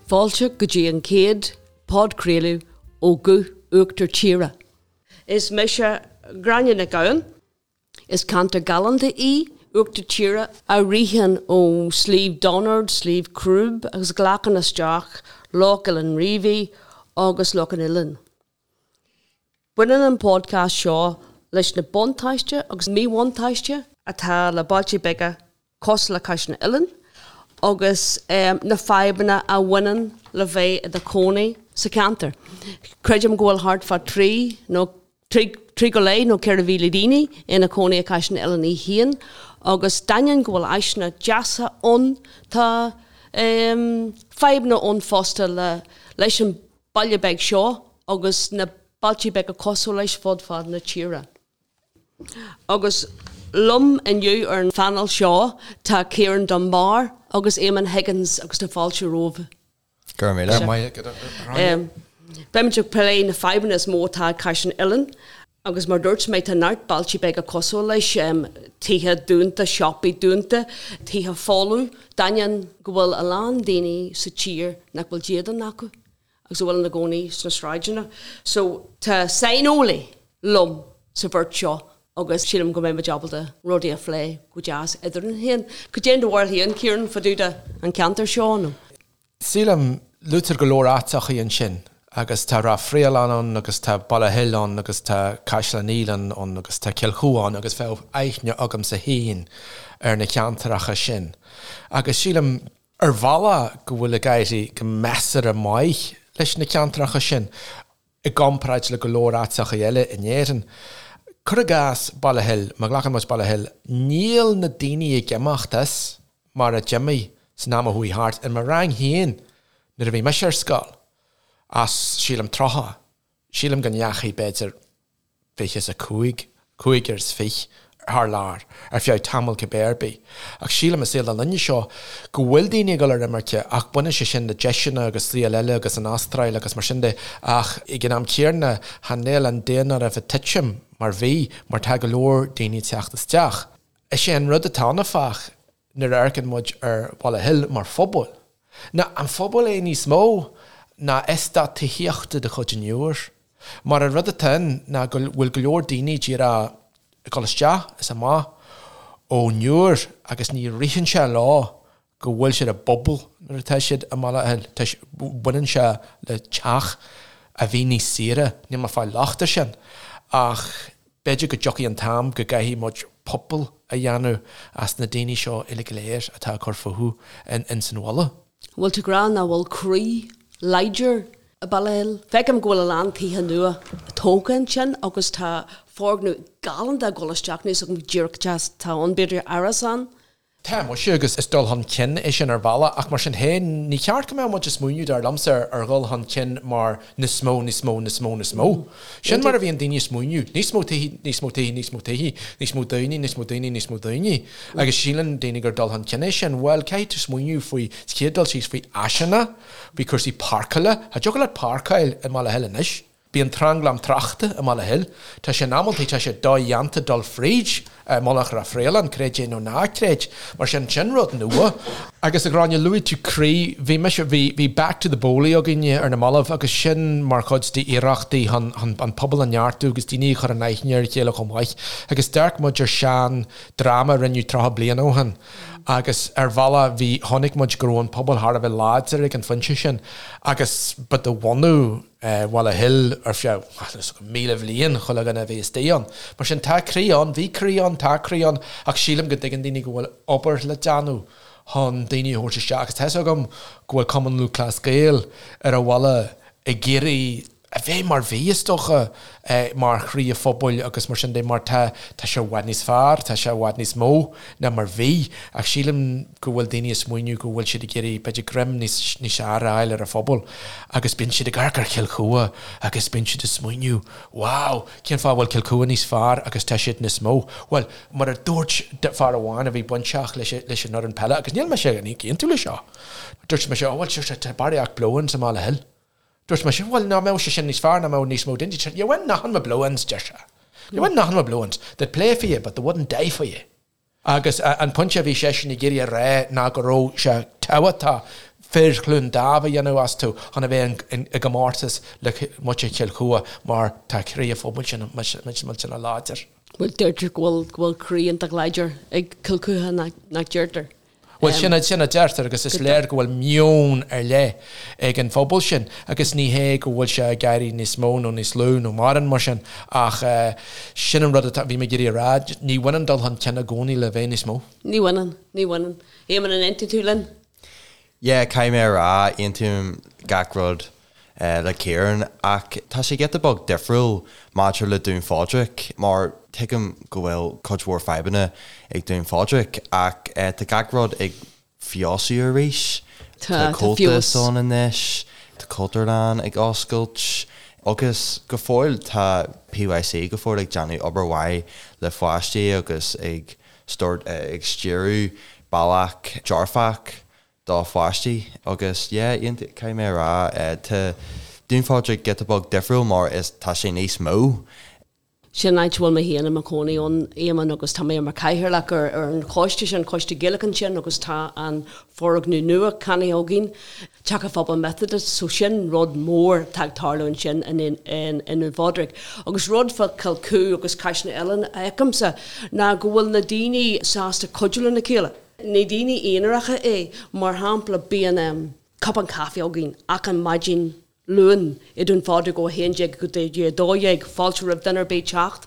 Fáilte go dtí an chéad podchraoladh ó Ghuth Uachtar Tíre. Is mise Gráinne Nic Gabhann. Is ceantar galánta í Uachtar Tíre a ritheann ó Sliabh Donard, Sliabh Crúb agus glacann isteach Loch Oileán Riabhaigh agus Loch an Oileáin. Baineann an podcast seo leis na buntáiste agus míbhuntáiste atá le bailte beaga cosúil le Caiseal na Oileán agus na fadhbanna a bhaineann le bheith i do chónaí sa cheantar. Creidim go bhfuil thart fá 3 nó 3 go leith nó 4,000 daoine ina cónaí i Caiseal na Oileán í féin agus d'ainneoin go bhfuil áiseanna deasa ann tá fadhbanna ann fosta le leis an baile beag seo agus na bailte beaga cosúil leis fud fad na tíre. Agus liom inniu ar an phainéal seo tá Ciarán Dunbar agus Eamon Higgins agus tá fáilte romhaibh. Go raibh míle maith agat a Ghráinne. Beimid ag plé na fadhbanna is mó atá ag Caiseal na Oileán agus mar dúirt mé tá neart bailte beaga cosúil leis, tithe dúnta, siopaí dúnta, tithe folamh, d'ainneoin go bhfuil a lán daoine sa tír nach bhfuil dídean acu. agus a bhfuil ina gcónaí sna sráideanna. So tá saineolaí liom sa bheirt seo agus sílim go mbeidh muid ábalta rudaí a phlé go deas eadrainn féin. Cad é do bharúil féin, Ciarán, fá dtaobh de an ceantar seo nó? Sílim, luaitear go leor áiteachaí ansin agus tá Ráth Fraoileann ann agus tá Baile Hill ann agus tá Caiseal an Fhaoileáin ann agus tá Cill Chua ann agus bheadh aithne agamsa féin ar na ceantaracha sin agus sílim, ar bhealach go bhfuil ag éirí go measartha maith leis na ceantracha sin i gcomparáid le go leor áiteacha eile in Éirinn. Cuir i gcás Baile Hill, má ghlacann muid Baile Hill, níl na daoine ag imeacht as mar a d'imigh san am a chuaigh thart. In mo rang féin nuair a bhí mise ar scoil, as sílim 30, sílim go ndeachaigh b'fhéidir 25, cúigear is fiche, thar lear, ar feadh tamaill cibé ar bith. Ach sílim i saol na linne seo go bhfuil daoine ag dul ar imirce ach baineann sé sin le deiseanna agus saol eile agus an Astráil agus mar sin de ach ag an am céanna chan eil an daonáireamh ag titim mar bhí mar tá go leor daoine ag teacht isteach. Is é an rud atá ann áfach nuair a amharcann muid ar Bhaile Hill mar phobal, ná an phobal é níos mó ná eastát tithíochta de chuid an Iúir. Mar an rud atá ann ná go bhfuil go leor daoine díreach ag dul isteach is amach ón Iúr agus ní ritheann sé leo go bhfuil siad i bpobal nuair atá siad i mBaile Hill. Baineann sé le teach a bhí níos saoire, níl mé ag fáil locht air sin, ach B'fhéidir go dtiocfaidh an t-am go gcaithfidh muid pobal a dhéanamh as na daoine seo uilig go léir atá ag cur fúthu ins an bhaile. Bhfuil tú ag rá nach bhfuil croí láidir i Baile Hill? Feicim go bhfuil a lán tithe nua tógtha ansin agus tá foirgneamh galánta ag dul isteach, níl a fhios agam díreach cad atá ann, b'fhéidir árasán Tá muise, agus is dul chun cinn é sin ar bhealach, ach mar sin féin, ní ceart go mbeadh muid ag smaoineamh, dar liomsa, ar dhul chun cinn mar níos mó, níos mó, níos mó, níos mó. Sin mar a bhíonn daoine ag smaoineamh, níos mó tithe, níos mó tithe, níos mó tithe, níos mó daoine, níos mó daoine, níos mó daoine. Agus síleann daoine gur dul chun cinn é sin. Bhuel, caithfidh tú smaoineamh faoi, sa chéad dul síos, faoi áiseanna, faoi chúrsaí páirceála. Cha dtiocfadh leat páirceáil i mBaile Hill anois. Bíonn tranglam tráchta i mBaile Hill. Tá sé in amantaí, tá sé dodhéanta dul fríd Mullach Ráth Fraoileann, creid é nó ná creid. Mar sin, sin rud nua. Agus a Ghráinne, luaigh tú croí. Bhí mise, bhí, bhí Back to the Boley againne ar na mallaibh agus sin mar chuid d'iarrachtaí chun, chun an pobal a neartú agus daoine a chur in aithne ar a chéile chomh maith. Agus d'amharc muid ar sean dráma a rinneadh 30 bliain ó shin agus ar bhealach bhí, chonaic muid go raibh an pobal thar a bheith láidir ag an phointe sin agus ba de bhunadh, Bhaile Hill ar feadh 1,000 bhliain, chuile dhuine a bhí istigh ann. Mar sin, tá croí ann, bhí croí ann, tá croí ann, ach sílim go dtuigeann daoine go bhfuil obair le déanamh chun daoine a thabhairt isteach. Agus tá 'fhios agam go bhfuil Cumann Lúthchleas Gael ar an bhaile ag iarraidh a bheith mar bhí, is dócha, mar chroí an phobail agus mar sin de, mar tá, tá sé i bhfad níos fearr, tá sé i bhfad níos mó ná mar bhí. Ach sílim go bhfuil daoine ag smaoineamh go bhfuil siad ag iarraidh, b'fhéidir, greim níos, níos fearr a fháil ar an phobal agus bíonn siad ag amharc ar Chill Chua agus bíonn siad ag smaoineamh, wow, cén fáth a bhfuil Cill Chua níos fearr agus tá siad níos mó? Bhuel, mar a dúirt fear amháin a bhí bainteach leis, leis an fhoireann peile, agus níl mise ag aontú leis seo, dúirt mise, oh well, sure, tá barraíocht blow-ins i mBaile Hill. Dúirt mise, bhuel, ná mbeadh sé sin níos fearr, ná mbeadh níos mó daoine? You win nothing with blow-ins, deir sé. You win nothing with blow-ins. They'd play for you, but they wouldn't die for you. Agus an pointe a bhí seisean ag iarraidh a rá ná go raibh sé tábhachtach. Fir Chluain Daimh a dhéanamh astu chun a bheith i gcomórtas le muintir Chill Chua mar tá croí an phobail sin millteanach láidir. Bhuel, deirtear go bhfuil go bhfuil croí iontach láidir ag Cill Chua, nach deirtear? Bhuel, sin sin a deirtear agus is léir go bhfuil meon ar leith ag an phobal sin agus ní hé go bhfuil sé ag éirí níos mó nó níos lú nó mórán mar sin ach sin an rud atá, bhí mé ag iarraidh a rá, ní bhaineann dul chun cinn i gcónaí le bheith níos mó. Ní bhaineann, ní bhaineann. Éamonn, an aontaíonn tú linn? Yeah, caithfidh mé a rá, aontaím gach rud le Ciarán, ach tá sé giota beag difriúil maidir le Dún Phádraig, mar tuigim go bhfuil cuid mhór fadhbanna ag Dún Phádraig, ach tá gach rud ag feabhsú arís. Tá Comhaltas ann anois, tá Cultúrlann ag oscailt, agus go fóill tá PYC go fóill ag déanamh obair mhaith le pháistí agus ag ag stiúradh bealach dearfach do pháistí agus yeah caithfidh mé a rá tá Dún Phádraig giota beag difriúil mar is tá sé níos mó. Sin áit a bhfuil mé féin i mo chónaí ann, Éamonn, agus tá mé mar chathaoirleach ar ar an choiste sin, Coiste Gaelach ansin agus tá an foirgneamh nua ceannaithe againn, Teach an Phobail Methodist, so sin rud mór atá ag tarlú ansin i nDún Phádraig. Agus rud fá Chill Chua agus Caiseal na nOileán a fheicimse ná go bhfuil na daoine sásta cuidiú lena chéile. Ní daoine aonaracha é, mar shampla bíonn cupán caife againn achan maidin Luain i Dún Phádraig ó 11 go dtí 12, fáilte roimh duine ar bith teacht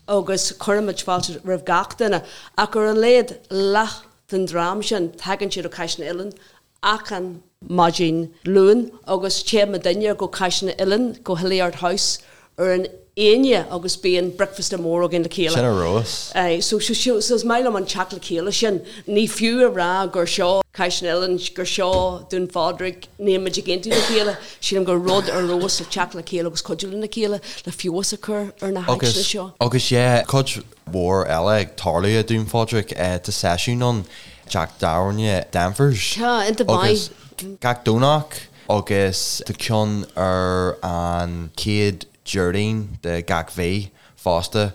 agus cuirimid fáilte roimh gach duine ach ar a laghad leath den dream sin tagann siad ó Chaiseal na nOileán achan maidin Luain agus téann muidinne go Caiseal na nOileán, go Hilliard House ar an Aoine agus bíonn bricfeasta mór againn le chéile. Sin ar fheabhas. Aye, so, so, so, so is maith liom an teacht le chéile sin. Ní fiú a rá gur seo Caiseal na nOileán, gur seo Dún Phádraig, níl muid ag aontú le chéile. Sílim gur rud ar fheabhas le teacht le chéile agus cuidiú lena chéile le feabhas a chur ar na háiteanna seo. Agus yeah, cuid mhór eile ag tarlú i Dún Phádraig. Tá seisiún ann teach tábhairne Danvers. Tá, iontach maith. Agus gach Domhnach agus tá ceann ar an chéad Déardaoin de gach mhí fosta.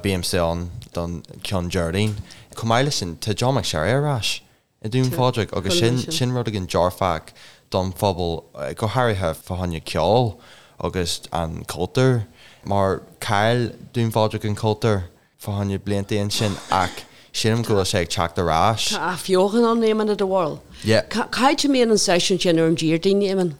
Bímse ann don ceann Déardaoin. Chomh maith leis sin, tá John McSherry ar ais i Dún Phádraig agus sin sin rud éigin dearfach don phobal, go háirithe fá choinne ceol agus an cultúr mar chaill Dún Phádraig an cultúr fá choinne blianta ansin ach sílim go bhfuil sé ag teacht ar ais. Tá athbheochan ann, Éamonn, i do bharúil? Yeah. Cá háit a mbíonn an seisiún sin ar an Déardaoin, Éamonn?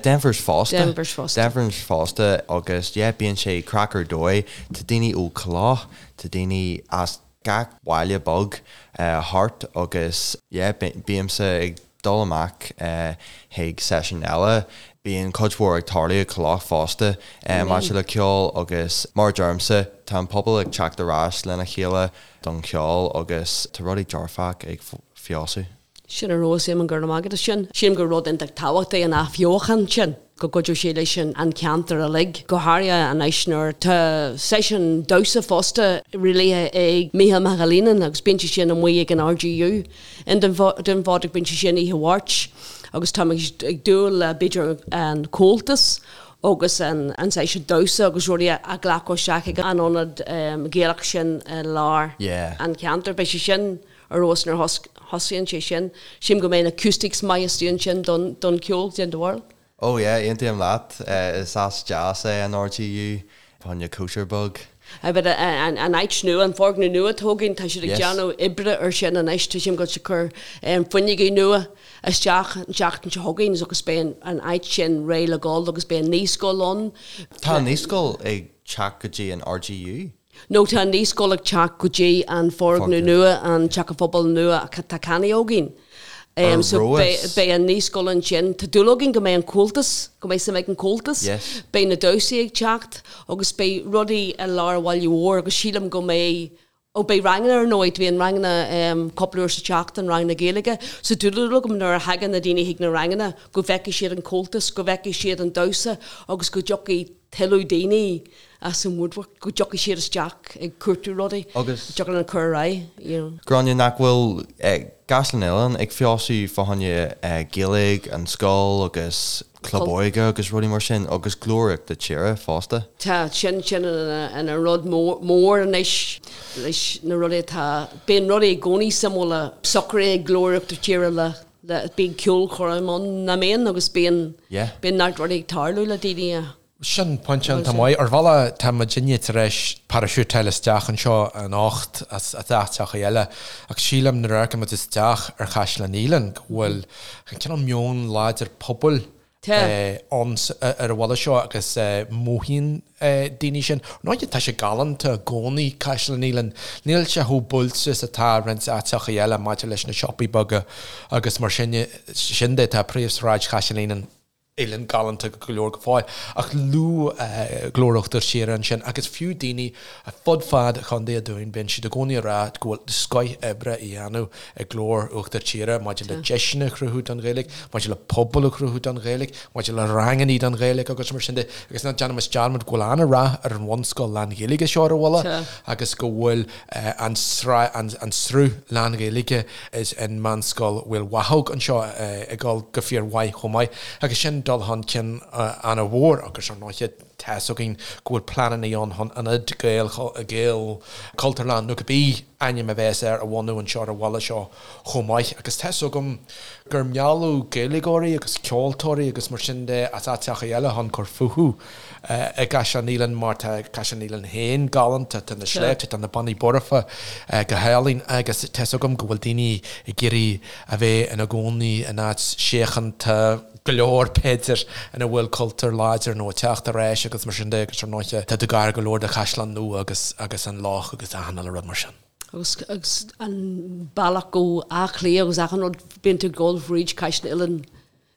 Denvers fosta. Denvers fosta. Denvers fosta agus yeah bíonn sé craic ar dóigh. Tá daoine ó Cloch, tá daoine as gach baile beag thart agus yeah bímse ag dul amach chuig seisiún eile. Bíonn cuid mhór ag tarlú i Cloch fosta maidir le ceol agus mar a deirimse tá an pobal ag teacht ar ais lena chéile don cheol agus tá rudaí dearfach ag feabhsú. Sin ar fheabhas, Éamonn, go raibh maith agat as sin. Sílim gur rud iontach tábhachtach é an athbheochan sin, go gcuideodh sé leis an cheantar uilig, go háirithe anois nuair tá seisiún damhsa fosta rialaithe ag Mícheál McAleenan agus bíonn sé sin amuigh ag an RGU i nDún Phádraig, bíonn sé sin oíche Mháirt agus tá mé ag dúil le b'fhéidir an Comhaltas agus an seisiún damhsa agus rudaí a ghlacadh isteach ag an ionad Gaelach sin i lár an cheantair. Beidh sé sin ar fheabhas nuair a thosaíonn sé sin. Sílim go mbeidh na acoustics maith istigh ansin don cheol, cad é do bharúil. Oh yeah, aontaím leat. Is áit deas é an RGU, fá choinne cóisir beag. Aye, but an áit nua, an foirgneamh nua atá againn, tá siad ag déanamh oibre ar sin anois, tá siad ag dul ag cur fuinneogaí nua isteach an tseachtain seo chugainn agus beidh an áit sin réidh le dhul agus beidh an naíscoil ann. Tá an naíscoil ag teacht go dtí an RGU? No tá an naíscoil ag teacht go dtí an foirgneamh nua, an Teach an Phobail nua atá ceannaithe againn. Ar So fheabhas. beidh an naíscoil ansin. Tá dúil againn go mbeidh an Comhaltas, go mbeidh suim ag an Comhaltas. Yes. Beidh na damhsaí ag teacht agus beidh rudaí i lár an bhaile mhóir agus sílim go mbeidh, ó beidh ranganna ar ndóigh, bíonn ranganna cúpla uair sa tseachtain, ranganna Gaeilge. So tá dúil agam nuair a thagann na daoine chuig na ranganna go bhfeicfidh siad an Comhaltas, go bhfeicfidh siad an damhsa agus go dtiocfaidh tuilleadh daoine as an woodwork, go dtiocfaidh siad isteach ag cuartú rudaí, Agus. dtiocfaidh linn cur ar aghaidh, you know. Gráinne, nach bhfuil Caiseal na nOileán ag feabhsú fá choinne Gaeilge, an scoil agus club óige agus rudaí mar sin agus Glór Uachtar Tíre fosta? Tá, sin, sin ina rud mór anois leis na rudaí atá, bíonn rudaí i gcónaí suimiúla socraithe ag Glór Uachtar Tíre le. le bíonn ceolchoirm ann nach mbíonn agus bíonn Yeah. bíonn neart rudaí ag tarlú le daoine a Sin pointe iontach maith. Ar bhealach tá muidinne tar éis paraisiútáil isteach anseo anocht as áiteacha eile ach sílim nuair a amharcann muid isteach ar Chaisleán Uidhilín go bhfuil an cineál meon láidir pobail ann ar an bhaile seo agus mothaíonn daoine sin. Ar ndóigh tá sé galánta i gcónaí, Caisleán Uidhilín. Níl sé chomh buailte is atá roinnt áiteacha eile maidir leis na siopaí beaga agus mar sin de tá príomhshráid Chaisleán Uidhilín galánta go leor go fóill. Ach luadh Glór Uachtar Tíre ansin agus fiú daoine fud fad Chontae an Dúin, bíonn siad i gcónaí ag rá go bhfuil scoith oibre á dhéanamh ag Glór Uachtar Tíre maidir le deiseanna a chruthú don Ghaeilge, maidir le pobal a chruthú don Ghaeilge, maidir le rangannaí don Ghaeilge agus mar sin de. Agus ná déanaimis dearmad go bhfuil an-rath ar an bhunscoil lán-Ghaeilge seo ar an bhaile agus go bhfuil an sruth lán-Ghaeilge is an Meánscoil Mhaoil Mhathóg anseo ag dul go fíor mhaith chomh maith agus sin dul chun cinn ana-mhór agus ar ndóighe tá's againn go bhfuil pleananna ann chun ionad Gael Gael Cultúrlann nó cibé ainm a bheas air a bhunú anseo ar an bhaile seo chomh maith agus tá's agam gur mealladh Gaeilgeoirí agus ceoltóirí agus mar sin de as áiteacha eile chun cur fúthu i gCaisleán Uidhilín mar tá Caisleán Uidhilín féin galánta, tá na sléibhte, tá na Bonnaí Boirche go hálainn agus tá's agam go bhfuil daoine ag iarraidh a bheith ina gcónaí in áit síochánta go leor b'fhéidir ina bhfuil cultúr láidir nó ag teacht ar ais agus mar sin de agus ar ndóighe tá tú gar go leor do Chaisleán Nua agus agus an loch agus achan uile rud mar sin. Agus agus an bealach go Áth Cliath agus achan rud bíonn tú ag dul fríd Caisleán Uidhilín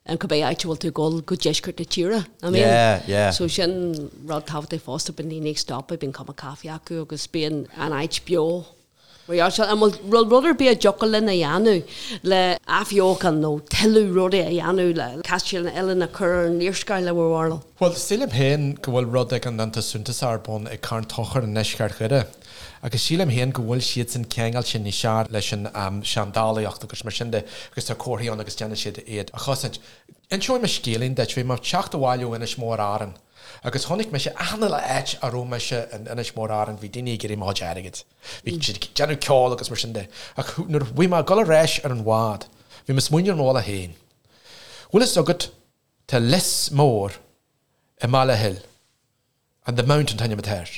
an cibé áit a bhfuil tú ag dul go deisceart na tíre, I mean. Yeah, yeah. So sin rud tábhachtach fosta, bíonn daoine ag stopadh, bíonn cupán caife acu agus bíonn an áit beo. Mar gheall sin, an bhfuil rud ar bith a dtiocfadh linn a dhéanamh le athbheochan nó tuilleadh rudaí a dhéanamh le Caisleán Uidhilín a chur ar an léarscáil i bhur bharúil? Bhuel, sílim féin go bhfuil rud éigin iontach suntasach ar bun ag Carn Tóchair i ndeisceart Dhoire. Agus sílim féin go bhfuil siadsan ceangailte níos fearr leis an seandálaíocht agus mar sin de agus tá comharthaí ann agus déanann siad iad a chosaint. Inseoidh mé scéilín duit. Bhí mé ag teacht abhaile ó Inis Mór Árann agus chonaic mise achan uile áit a raibh mise in Inis Mór Árann bhí daoine ag iarraidh mo chuid airgid. Bhí siad ag déanamh ceoil agus mar sin de. Ach nuair a bhí mé ag dul ar ais ar an bhád bhí mé ag smaoineamh ar mo bhealach féin. Bhfuil fhios agat tá lios mór i mBaile Hill. And the Mount an t-ainm atá air.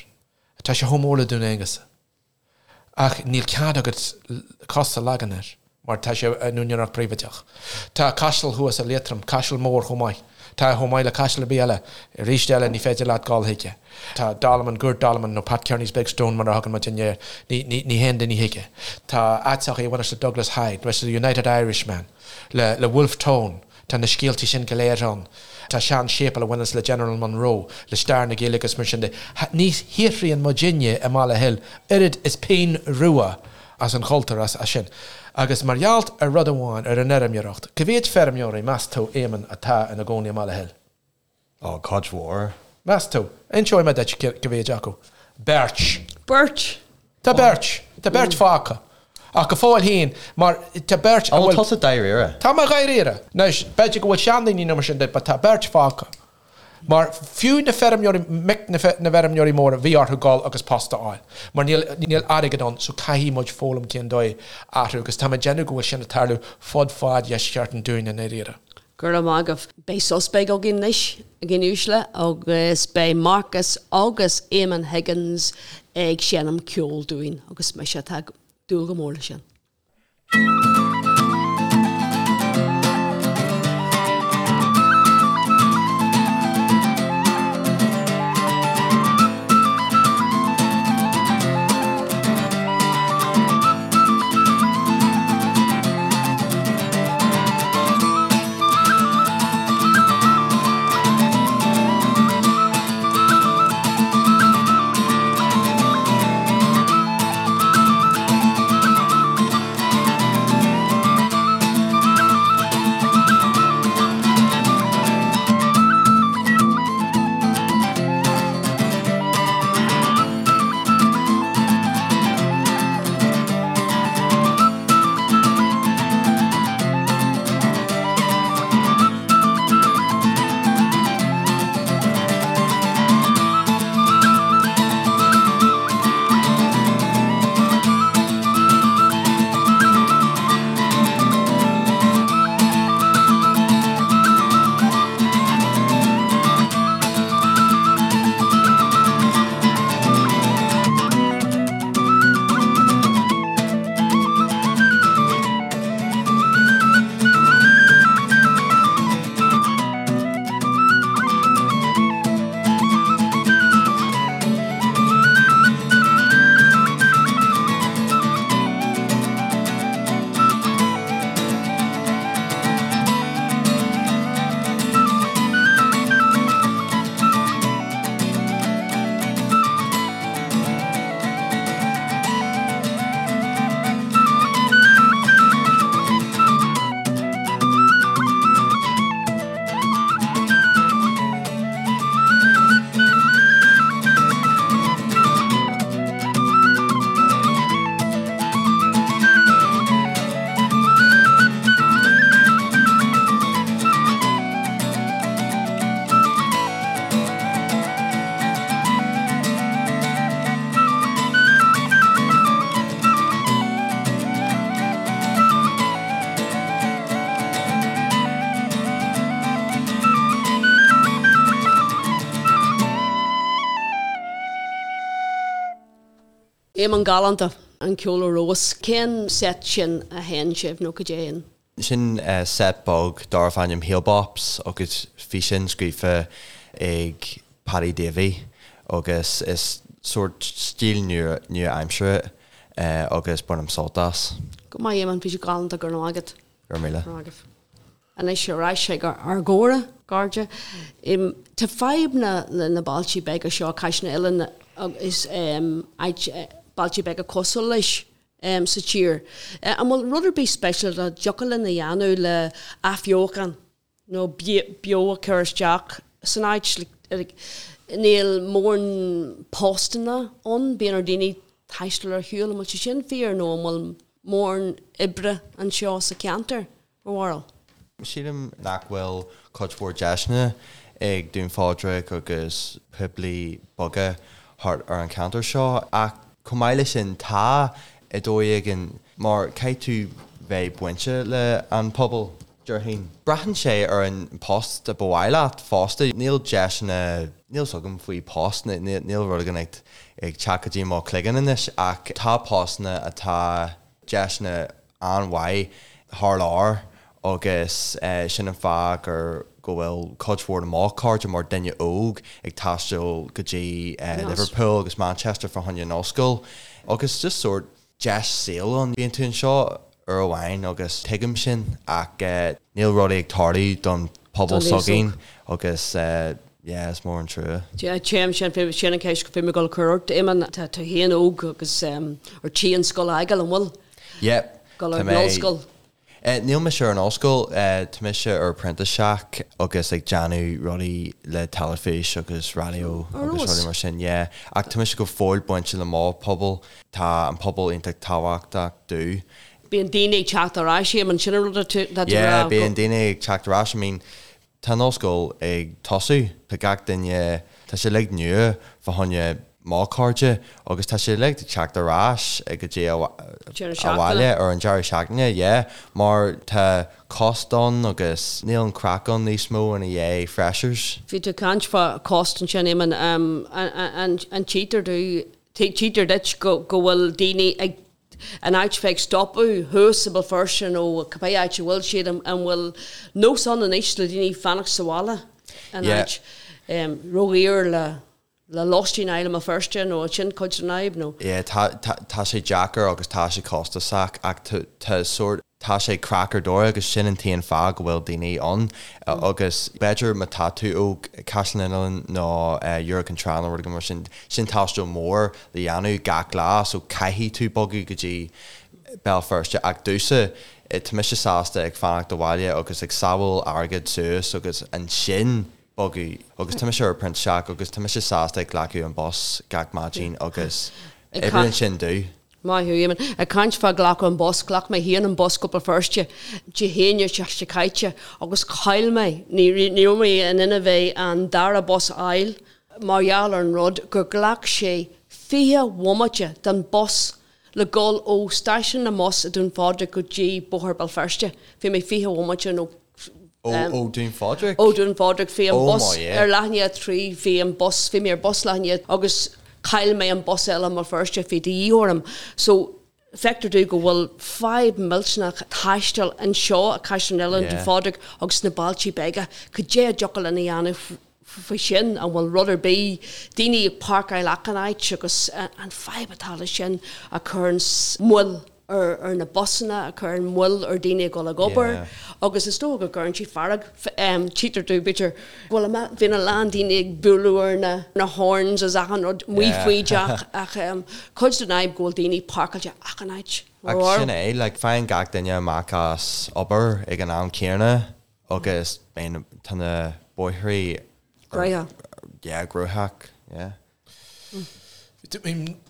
Tá sé chomh mór le Dún Aonghasa. Ach níl cead agat cos a leagan air mar tá sé in úinéireacht príobháideach. Tá caiseal thuas i Liatroim, caiseal mór chomh maith. Tá chomh maith le caiseal ar bith eile. Arís eile ní féidir leat dul chuige. Tá Dolmen, Gort Dolmen nó Pat Kearney's Big Stone mar a thugann muidinne air. Ní, ní, ní théann daoine chuige. Tá áiteacha a bhaineas le Douglas Hyde, leis the United Irishman, le, le Wolfe Tone. Tá na scéaltaí sin go léir ann. Tá sean-séipéal a bhaineas le General Monroe, le stair na Gaeilge agus mar sin de. Ní shaothraíonn muidinne i mBaile Hill oiread is pingin rua as an chultúr, as sin. Agus mar gheall ar rud amháin, ar an fheirmeoireacht. Cá mhéad feirmeoirí, meas tú, Éamonn, atá ina gcónaí i mBaile Hill? Ó, cuid mhór. Meas tú? Inseoidh mé duit cá mhéad acu. Beirt. Beirt! Tá beirt. Tá beirt fágtha. Ach go fóill féin, mar tá beirt a bhfuil. An bhfuil tusa dáiríre? Tá mé dáiríre. Anois, b'fhéidir go bhfuil seandaoine nó mar sin de, but tá beirt fágtha. Mar fiú na feirmeoirí, mic na bhfeirmeoirí móra, bhí orthu dul agus post a fháil. Mar níl, níl airgead ann, so caithfidh muid foghlaim cén dóigh athrú. Agus tá mé ag déanamh go bhfuil sin ag tarlú fud fad dheisceart an Dúin i ndáiríre. Go raibh maith agaibh. Beidh sos beag againn anois, a dhaoine uaisle, agus beidh Marcus agus Eamon Higgins ag seinm ceoil dúinn agus mise atá ag dúil go mór leis sin. Éamonn Galánta, an ceol ar fheabhas. Cén set sin a sheinn sibh nó cad é an. Sin set beag darbh ainm Heel Bops agus bhí sin scríofa ag Paddy Davey agus is sórt stíl nua-aimseartha é agus bainim sult as. Go maith Éamonn, bhí sé galánta, go raibh maith agat. Go raibh míle. Go raibh maith agaibh. Anois ar ais ag ár gcomhrá, a chairde. Tá fadhb na na bailtí beaga seo, Caisleán an Oileáin agus bailte beaga cosúil leis sa tír. An bhfuil rud ar bith speisialta a dtiocfadh linn a dhéanamh le athbheochan nó beo a chur isteach san áit? Níl mórán postanna ann, bíonn ar daoine taisteal ar shiúl, an bhfuil sé sin fíor nó an bhfuil mórán oibre anseo sa cheantar? Bhur mbarúil? Sílim nach bhfuil cuid mhór deiseanna ag Dún Phádraig agus poiblí beaga thart ar an cheantar seo ach chomh maith leis sin tá i dóigh éigin mar caithfidh tú bheith bainte le an pobal, déarfainn. Braitheann sé ar an post a ba mhaith leat fosta. Níl deiseanna, níl 's agam faoi post, níl rud éigin ag teacht go dtí mo chloigeann anois ach tá postanna atá deiseanna an-mhaith thar lear agus sin an fáth gur go bhfuil cuid mhór de mo chairde mar duine óg ag taisteal go dtí Liverpool agus Manchester fá choinne an ollscoil agus just sórt deis saoil ann. Bíonn tú anseo uair amháin agus tuigim sin ach níl rudaí ag tarlú don pobal s'againn agus yeah is mór an trua. Yeah téim sin sin an ceist go bhí mé ag dul a chur ort Éamonn tá tú féin óg agus ar tí an scoil a fhágáil an bhfuil? Yeah Dul ar an ollscoil. Níl mise ar an ollscoil, tá mise ar printiseach agus ag déanamh rudaí le teilifís agus raidió agus rudaí mar sin, yeah. Ach tá mise go fóill bainte le mo pobal, tá an pobal iontach tábhachtach domh. Bíonn daoine ag teacht ar ais, Éamonn, sin an rud atá tú a rá. Yeah, bíonn daoine ag teacht ar ais, I mean, Tá an ollscoil ag tosú, tá gach duine, tá sé uilig nua fá choinne mo chairde agus tá sé uilig ag teacht ar ais go dtí abhaile ar an deireadh seachtaine, yeah, mar tá cost ann agus níl an craic ann níos mó ina dhiaidh freshers. Bhí tú ag caint fá cost ansin, Éamonn, an tchítear tchítear duit go bhfuil daoine ag in áit bheith ag stopadh thuas i mBéal Feirste nó cibé áit a bhfuil siad, an bhfuil nós ann anois le daoine fanacht sa bhaile in áit ródhaor le le lóistín a fháil i mBéal Feirste nó sin cuid den fhadhb nó? Yeah, tá tá sé deacair agus tá sé costasach ach tá tá sórt tá sé craic ar dóigh agus sin an t-aon fáth go bhfuil daoine ann agus b'fhéidir má tá tú ó Caisleán an Oileáin nó Iúr Cinn Trá nó rud éigin mar sin, sin taisteal mór le dhéanamh gach lá so caithfidh tú bogadh go dtí Béal Feirste ach domhsa tá mise sásta ag fanacht abhaile agus ag sábháil airgead suas agus ansin bogadh agus tá mise ar printiseach agus tá mise sásta ag glacadh an bus gach maidin agus oibríonn sin domh. Maith thú, Éamonn. Ag caint fá glacadh an bus, ghlac mé féin an bus go Béal Feirste Dé hAoine seo caite agus chaill mé, ní raibh mé in inmhe bheith an dara bus a fháil mar gheall ar an rud gur ghlac sé 20 bhomaite don bus le dhul ó stáisiún na mbus i Dún Phádraig go dtí Bóthar Béal Feirste. Bhí mé 20 bhomaite nó Ó Dún Phádraig? Ó Dún Phádraig. Bhí an bus ar leath i ndiaidh a 3, bhí an bus, bhí mé ar bus leath i ndiaidh agus chaill mé an bus eile i mBéal Feirste, bhí de dhíth orm. So, feictear domh go bhfuil fadhb millteanach taistil anseo i Caisleán an Oileáin, Dún Phádraig agus sna bailtí beaga. Cad é a dtiocfadh linn a dhéanamh faoi sin? An bhfuil rud ar bith, daoine ag páirceáil achan áit agus an fadhb atá leis sin a chuireann moill ar na busanna, a chuireann moill ar daoine ag dul ag obair agus is dócha go gcuireann sé fearg, tchítear domh b'fhéidir go bhfuil, bíonn a lán daoine ag bualadh ar na na horns is achan rud amuigh faoi dteach ach cuid den fhadhb go bhfuil daoine páirceáilte achan áit. Ach sin é, like faigheann gach duine amach as obair ag an am céanna agus bíonn, tá na bóithrí Gnóthach. Yeah, gnóthach, yeah.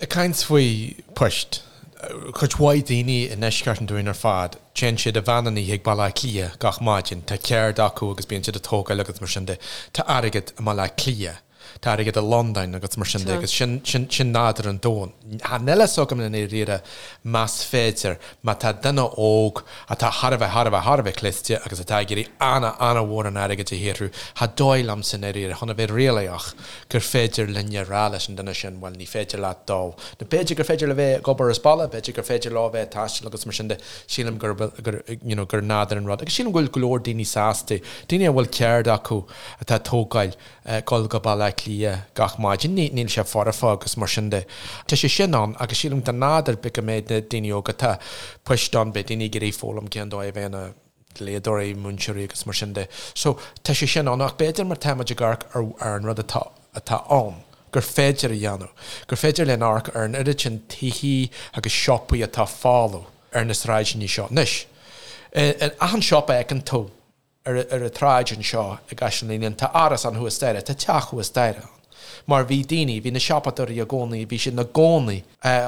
Ag caint faoi poist, cuid mhaith daoine i ndeisceart an Dúin ar fad, téann siad i veain an oíche ag Baile Átha Cliath gach maidin, tá ceird acu agus bíonn siad ag tógáil agus mar sin de. Tá airgead i mBaile Átha Cliath. Tá airgead i Londain agus mar sin de agus sin, sin, sin nádúr an domhain. Níl a fhios agam i ndáiríre más féidir, má tá duine óg atá thar a bheith, thar a bheith, thar a bheith cliste agus atá ag iarraidh ana, ana-mhórán airgid a shaothrú, cha dóigh liomsa i ndáiríre, chun a bheith réalaíoch, gur féidir linne a rá leis an duine sin, bhuel, ní féidir leat dul. Nó b'fhéidir gur féidir leo bheith ag obair as baile, b'fhéidir gur féidir leo bheith ag taisteal agus mar sin de. Sílim gur, gur, you know, gur nádúr an rud. Agus sílim go bhfuil go leor daoine sásta, daoine a bhfuil ceird acu atá ag tógáil dul go Baile Átha Cliath gach maidin, níl sé foirfe agus mar sin de. Tá sé sin ann agus sílim de nádúr b'fhéidir go mbeidh na daoine óga, tá poist ann, beidh daoine ag iarraidh foghlaim cén dóigh a bheith ina dlíodóirí, múinteoirí agus mar sin de. So, tá sé sin ann ach b'fhéidir mar tá muid ag amharc ar ar an rud atá atá ann, gur féidir a dhéanamh, gur féidir linn amharc ar an oiread sin tithí agus siopaí atá folamh ar na sráideanna seo. Anois, in achan siopa a fheiceann tú, ar an tsráid anseo i gCaisleán Uidhilín, tá árasán thuas staighre, tá teach thuas staighre ann. Mar bhí daoine, bhí na siopadóirí i gcónaí, bhí siad ina gcónaí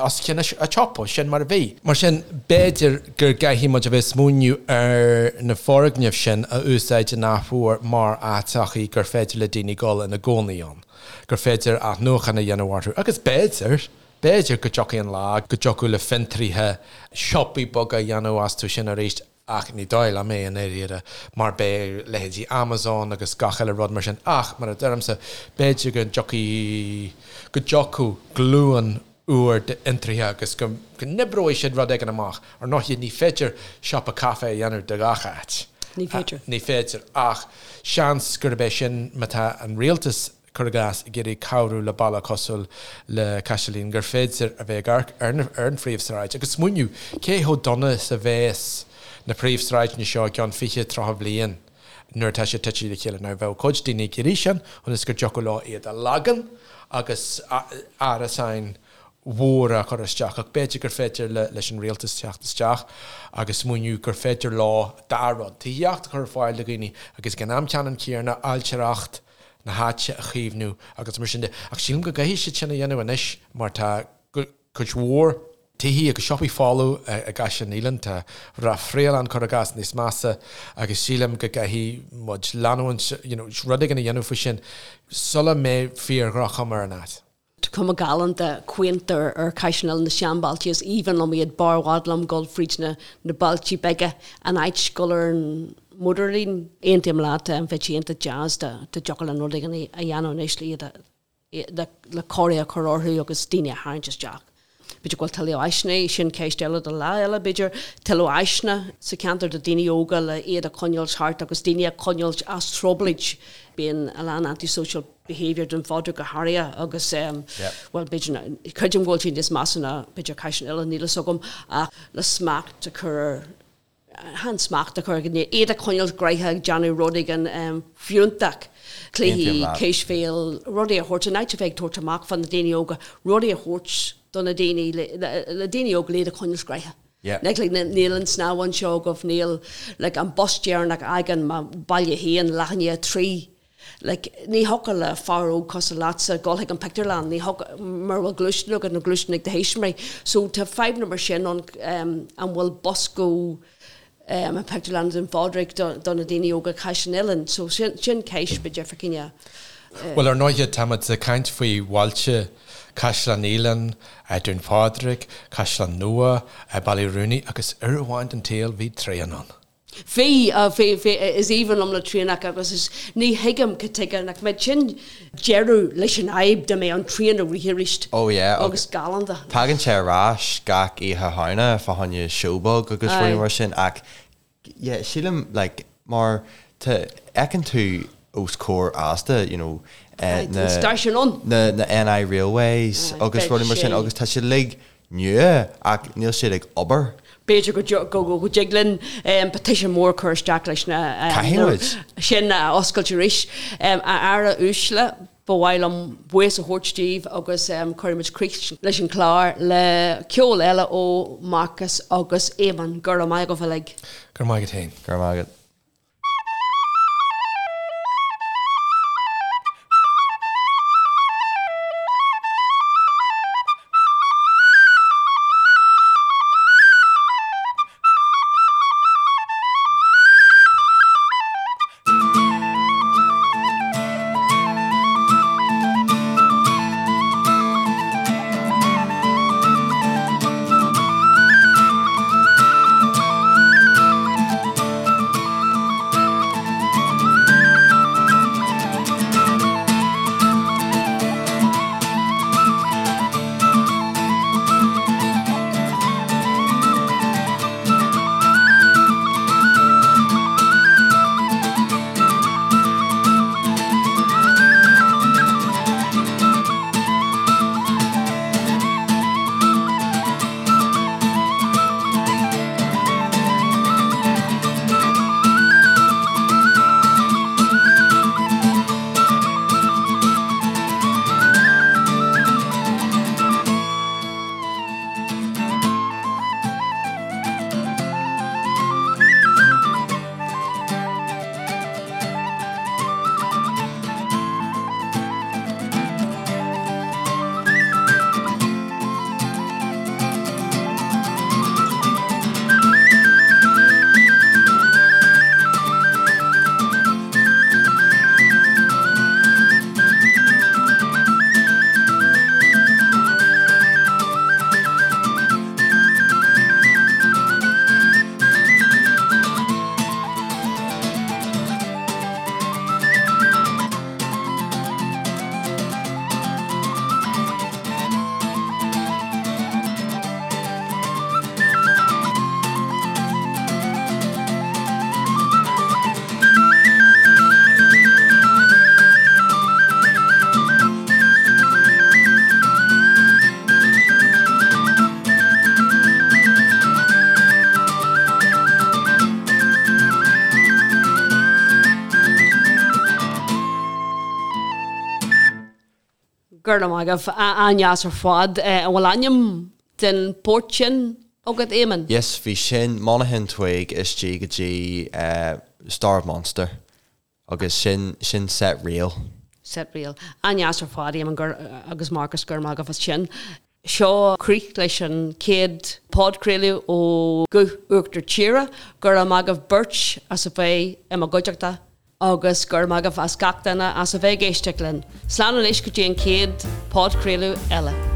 os cionn an tsiopa, sin mar a bhí. Mar sin, b'fhéidir go gcaithfidh muid a bheith ag smaoineamh ar na foirgnimh sin a úsáid in athuair mar áiteachaí gur féidir le daoine dul ina gcónaí ann, gur féidir athnuachan a dhéanamh orthu agus b'fhéidir, b'fhéidir go dtiocfaidh an lá go dtiocfadh le fiontraithe siopaí beaga a dhéanamh astu sin arís. Ach ní dóigh liom é i ndáiríre, mar beidh leithéidí Amazon agus gach uile rud mar sin ach, mar a deirimse, b'fhéidir go dtiocfaidh, go dtiocfadh glúin úr d'fhiontraithe agus go n-oibreoidh siad rud éigin amach. Ar ndóigh, ní féidir siopa caife a dhéanamh de gach áit. Ní féidir. Ní féidir. Ach seans gurb é sin, má tá an rialtas cuir i gcás, ag iarraidh cabhrú le baile cosúil le Caiseal Uidhilín, gur féidir a bheith ag amharc ar an phríomhshráid agus smaoineamh cé chomh dona is a bheas na príomhshráideanna seo i gceann 20, 30 bliain nuair atá siad tite le chéile. Now, bheadh cuid daoine ag iarraidh sin ionas go dtiocfadh leo iad a leagan agus árasáin mhóra a chur isteach ach b'fhéidir gur féidir leis an rialtas teacht isteach agus smaoineamh gur féidir leo dá rud, tithíocht a chur ar fáil do dhaoine agus ag an am ceannann céanna ailtireacht na háite a chaomhnú agus mar sin de. Ach sílim go gcaithfidh siad sin a dhéanamh anois mar tá cuid mhór tithí agus siopaí folamh i gCaisleán Uidhilín, tá Rath Fraoileann, cuir i gcás, níos measa agus sílim go gcaithfidh muid leanúint, you know, rud éigin a dhéanamh faoi sin sula mbeidh fíor-dhroch-chuma ar an áit. Tá cuma galánta quaint ar ar Caisleán Uidhilín na seanbhailte is aoibhinn liom iad b'fhearr i bhfad liom dul fríd na na bailte beaga in áit dul ar an mótarlíne. Aontaím leat, bheadh sé iontach deas dá dtiocfadh linn rud éigin a dhéanamh anois le iad a le le cóirithe a chur orthu agus daoine a tharraingt isteach. B'fhéidir go bhfuil tuilleadh áiseanna, sin ceist eile do lá eile b'fhéidir, tuilleadh áiseanna sa cheantar do daoine óga le iad a choinneáil thart agus daoine a choinneáil as trioblóid. Bíonn a lán anti-social behaviour Dún Phádraig go háirithe agus bhuel b'fhéidir, creidim go bhfuil sé níos measa ná b'fhéidir Caisleán Uidhilín, níl fhios agam ach le smacht a chur ar, chan smacht a chur, iad a choinneáil gnoitheach ag déanamh rud éigin fiúntach, cluichí, cispheil, rudaí a thabhairt, in áit a bheith ag tabhairt amach fá na daoine óga, rudaí a thabhairt do na daoine, le daoine óga le iad a choinneáil gnoitheach. Like, like, níl an snámh anseo agaibh, níl, like, an bus deireanach a fhágann mo baile féin leath i ndiaidh a 3. Like, ní thiocfadh le fear óg cosúil leatsa dul chuig an pictiúrlann, ní thiocfadh, mura bhfuil gluaisteán agat nó gluaisteán ag do thuismitheoirí. So tá fadhbanna mar sin ann, an bhfuil bus go an pictiúrlann Dún Phádraig do, do na daoine óga Caisleán Uidhilín. So sin, sin ceist b'fhéidir fá choinne. Bhuel, ar ndóighe, táimid ag caint faoi bhailte Caisleán Uidhilín, Dún Phádraig, Caisleán Nua, Baile Uí Rúnaí agus uair amháin den tsaol bhí traein ann. Bhí, bhí, bhí, is aoibhinn liom na traenacha agus is, ní thuigim cad tuige nach mbeadh sin deireadh leis an fhadhb dá mbeadh an traein ag rith arís Oh yeah, agus galánta. Tagann sé ar ais gach Oíche Shamhna fá choinne seó beag agus rudaí mar sin ach yeah sílim like mar tá fheiceann tú os comhair Asda you know na stáisiún ann. na na NI Railways agus rudaí mar sin agus tá siad uilig nua ach níl siad ag obair. B'fhéidir go go dtig linn petition mór a chur isteach leis na Caithfidh muid. sin a oscailt arís. A fheara uaisle, ba mhaith liom buíochas a thabhairt daoibh agus cuirfidh muid críoch leis an chlár le ceol eile ó Marcus agus Éamonn. Go raibh maith agaibh uilig. Go raibh maith agat féin. Go raibh maith agat. Go raibh maith agaibh. An-deas ar fad. An bhfuil ainm den port sin agat, Éamonn? Yes, bhí sin, Monaghan Twig istigh go dtí Star of Munster agus sin, sin set reel. Set reel. An-deas ar fad, Éamonn agus Marcus, go raibh maith agaibh as sin. Seo críoch leis an chéad podchraoladh ó Guth Uachtar Tíre. Go raibh maith agaibh beirt as a bheith i mo gcuideachta agus go raibh maith agaibh as gach duine as a bheith ag éisteacht linn. Slán anois go dtí an chéad podchraoladh eile.